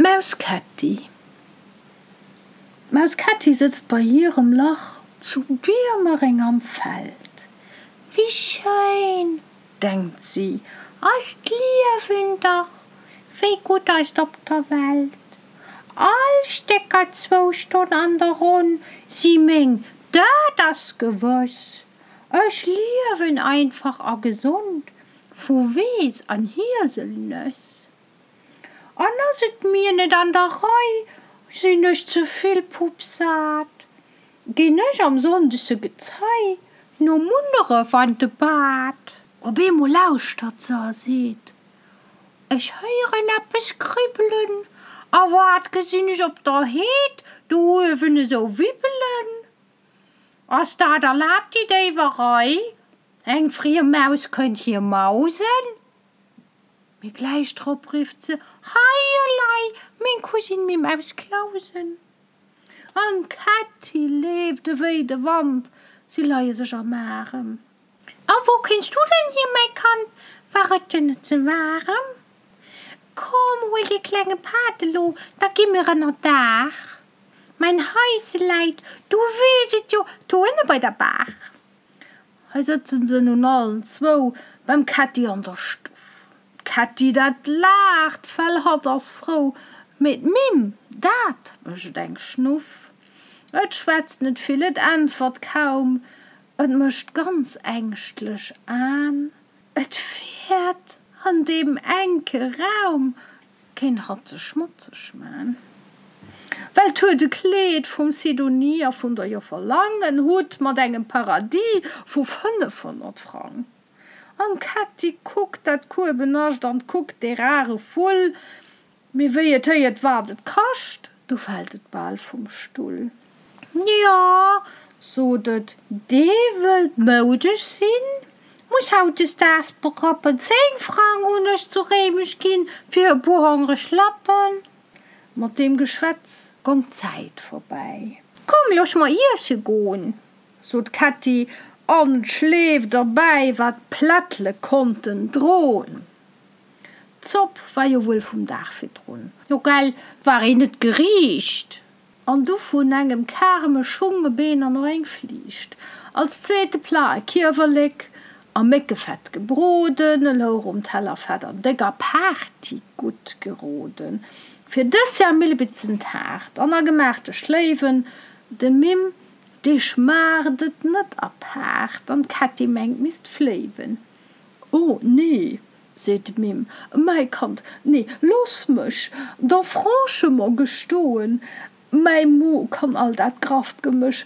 D'Maus Kätti D'Maus Kätti sëtzt bei hirem Lach zu Biermereng am Feld. Wéi schéin, denkt si, ass d'Liewen dach, wéi gutt ass 't op der Welt. All Stécker zwou Stonn an der Ronn si meng, dat ass gewëss. Ech liewen einfach a gesond vu Weess an Hieselnëss. An ass et mir net an der Rei, sinn ech ze vill puppsat, ginn ech am sonndege Gezei no Munneref an de Bad. Op eemol lauschtert se a seet, Ech héieren eppes kribbelen, a wat gesinn ech op der Heed do uewen esou wibbelen? Ass dat erlaabt, déi Déiwerei? Eng friem Maus kënnt hier mausen? Mee gläich drop rifft se, Hei elei, meng Cousine Mim aus Clausen! An d'Kätti leeft ewéi de Wand, si leie sech am Arem. A wou kéins du denn hier, mäi Kand, war et dir net ze waarem? Komm, huel dee klenge Patt elo, da gi mir ënner Daach. Mäin Haise läit, du weess et jo, do ënne bei der Baach. Hei sëtzen se nun allen zwou beim Kätti an der Stuff. D'Kätti, dat laacht, well hatt ass frou, mee d'Mimm, dat mécht eng Schnuff. Et schwätzt net vill, et äntwert kaum, et mécht ganz ängschtlech Aen. Et fäert an deem enke Raum Kéint hatt sech schmotzeg man. Well 't huet e Kleed vum Sidonie a vun der Joffer Lang, en Hutt mat engem Paradis vu 500 Frang. An d'Kätti kuckt dat Kuebenascht an kuckt dee rare Vull, mee wéi et héiert wat et kascht, du fält et bal vum Stull. Jo, sot et, dee wëllt moudesch sinn, muss hautdesdaags berappen. Zéng Frang hunn ech zu Réimech ginn fir e puer hongreg Lappen. Mat deem Geschwätz gong d'Zäit vorbäi. Komm, looss mer iesse gon, sot d'Kätti an d'Schleeft erbäi, wat d'Plättle konnten dron. D'Zopp war jo wuel vum Dag virdrun. Jo gell, war een net geriicht? An du vun engem Karme Schung, e Been an och eng Fliicht. Als zweete Plat e Kiewerlek a Méckefett gebroden, e louch um Teller fett an déck apaarti gutt geroden. Fir Dessert Millebitzentaart an agemaachte Schléiwen. Dem Mimm, dee schmaacht et net apaart an d'Kätti mengt misst fléiwen. O nee, seet d'Mimm, mäi Kand, nee, looss mech der franchement gestoen, mäi Mo kann all dat grafft Gemësch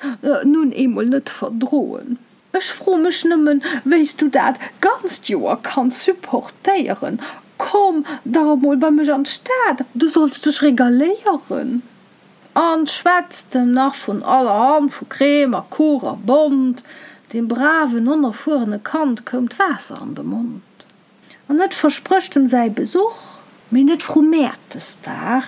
nun eemol net verdroen. Ech fro mech nëmmen, wéi s du dat ganzt Joer kanns supportéieren. Komm dach emol bei mech an d'Stad, du solls dech regaléieren. An schwätzt em nach vun allerhand, vu Crème a Kuch a Bond. Deem braven, onerfuerene Kand koum d'Waasser an de Mond. An et versprécht em säi Besuch, mee net vru Mäertesdag.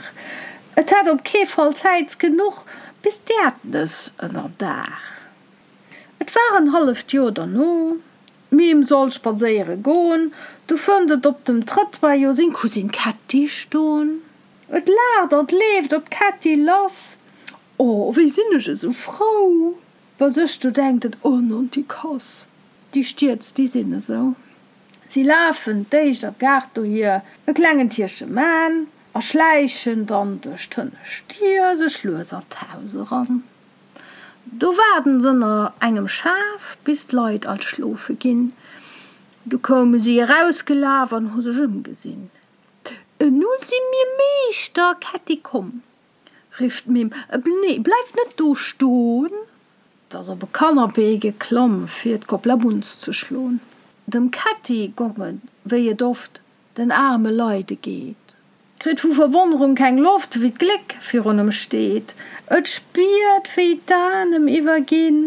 Et hätt op kee Fall Zäit genuch bis d'Äerdnëss ënner Daach. Et war en halleft Joer derno, d'Mim sollt spadséiere gon, du fënnt et op dem Trëttoir jo seng Cousine Kätti ston. Et laacht an leeft op d'Kätti lass. O, wéi sinn ech esou frou! Bei sech do denkt et, O Nonticass, déi Stierz, déi sinn esou. Si lafen d'éischt am Gaart dohier, e klengen Tierche man, a schläichen dann duerch d'hënnescht Dier sech lues an d'Haus eran. Do waarden s'ënner engem Schaf, bis d'Leit all schlofe ginn. Du koume si erausgelaf an hu sech ëmgesinn. Nu si mir Meeschter, Kätti, komm, rifft d'Mimm, nee, bleif net do ston! 't ass op e Kannapee geklomm, fir d'Koplabunz ze schlon. Dem Kätti gong et, wéi et oft den aarme Leide geet. Kritt vu Verwonnerung keng Loft, wéi d'Gléck virun em steet. Et spiert, wéi d'Aen em iwwerginn,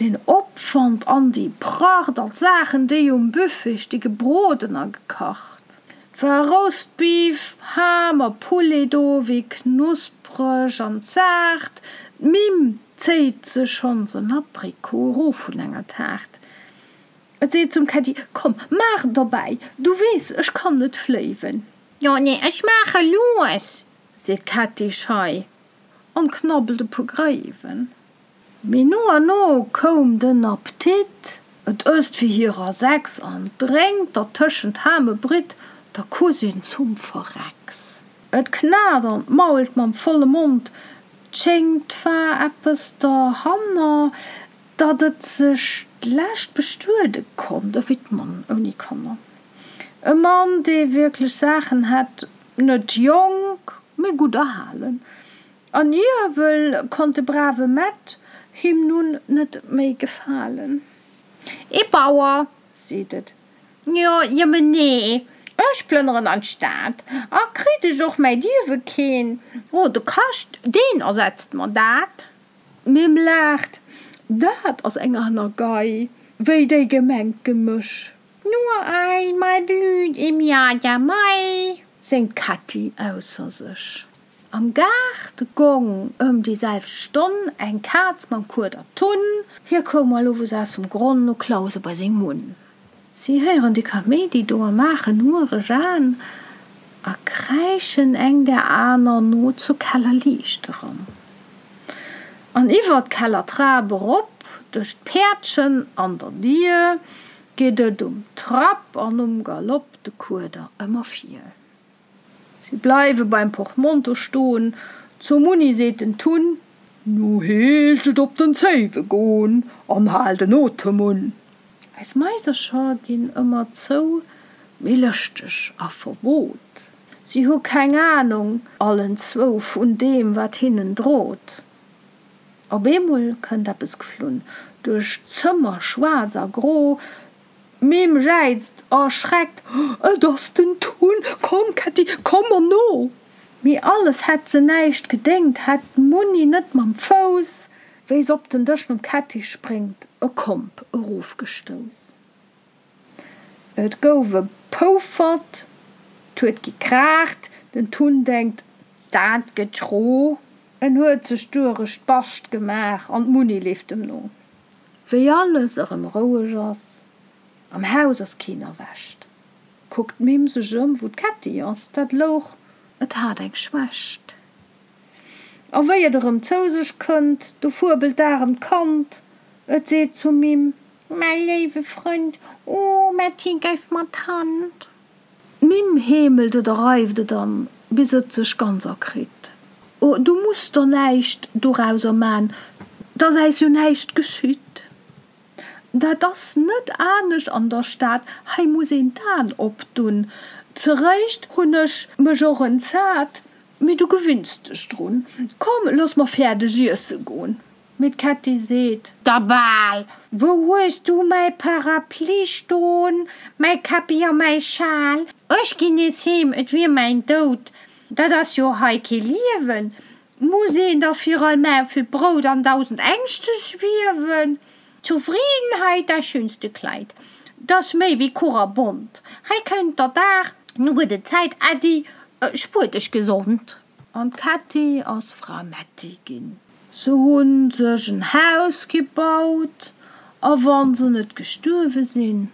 den Opwand an déi Pracht an d'Saachen, déi um Buffet sti gebroden a gekacht. 't war Roastbeef, Ham a Poulet do, wéi knuspreg an zaart. D'Mimm zéit sech schonns en Aprikot erof vun enger Taart. Et seet zum Kätti, Komm, maach derbäi, du weess, ech kann net fléiwen. Jo, nee, ech maache lues! Seet d'Kätti schei an knabbelt e puer Gréiwen. Mee no an no koum den Appetit, et ësst fir hirer 6 an drénkt dertëschent Ham e Britt der Cousine zum Verrecks. Et knat an mault mam volle Mond, 't schéngt 't war eppes derhanner, datt et sech d'lescht bestuede konnt, ewéi d'Mann ouni Kanner. E Mann, dee wierklech Saachen hätt, net jonk, mee gutt erhalen. An iewel konnt de brave Mett him nun net méi gefalen. Ee Bauer, seet et, jo, jëmmen nee, ech plënneren an d'Stad, a kritt ech och mäi Liewe keen, o, de Kascht, deen ersetzt mer dat. D'Mimm laacht, Dat ass eng aner Gei wéi déi gemengt Gemësch. Nur einmal blüht im Jahr der Mai, séngt d'Kätti ausser sech. Am Gaart gong ëm déi selwecht Stonn eng Kaz mam Kueder Tunn. Hie koum all owes aus dem Gronn no Clause bei seng Munn. Si héieren de Kaméidi do a maachen huereg Aen a kräischen eng der aner no zur Kellerliicht eran. An iwwer d'Kellertrap erop, duerch d'Päerdchen an der Dier, geet et um Trapp an um Galopp de Kueder ëmmer vir. Si bleiwe beim Portmonto stoen, Zum Munni seet den Tunn. Nu heescht et op den Zéiwe gon an hal den Otem un. Eis Maisercher ginn ëmmer zou méi lëschteg a verwot. Si hu keng Anung allen zwou vun deem wat hinnen drot. Op eemol kënnt eppes geflunn duerch d'Zëmmer, schwaarz a gro. D'Mimm jäizt erschreckt, Et ass den Tun! Komm, Kätti, komm mer no! Mee alles hätt se näischt gedéngt, hätt d'Munni net mam Fouss, wéi s'op den Dësch nom Kätti spréngt, e Komp erofgestouss. Et gouf e Poufert, 't huet gekraacht, den Tun denkt, Dat gëtt schro! En huet sech durech d'Bascht gemaach an d'Munni leeft em no. Wéi alles erëm roueg ass, am Haus ass keen erwächt, kuckt d'Mimm sech ëm, wou d'Kätti ass, dat louch, et hat eng Schwächt. A wéi et erëm zou sech kënnt, du fuebelt d'aremt Kand, et seet zum Mimm. Mäi léiwe Frënd, o Mätti, geif mer d'Hand. D'Mimm heemelt et a reift et an, bis et sech ganz erkritt. O, du muss der näischt dorauser man, 't ass äis jo näischt geschitt. Dat ass net anescht an der Stad, hei muss een d'An opdun. Zeréischt hunn ech mech och entsat, mee du gewinns dech drun. Komm, looss mer fäerdeg iesse gon. Mee d'Kätti seet. Da bal! Wou hues du mäi Parapluie ston, mäi Käppi a mäi Schal? Ech ginn nees heem, et wier mäin Doud, dat ass jo hei kee Liewen. Muss een da fir all Maufel Brout an dausend Ängschte schwiewen? Zufriedenheit, das schönste Kleid, 't ass méi wéi Kuch a Bond. Hei kënnt der Dag, nu gëtt et Zäit, Äddi, spuer dech gesond. An d'Kätti ass Fra Mätti ginn. Se hunn sech en Haus gebaut, a wann se net gestuerwe sinn,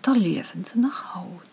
da liewen se nach haut.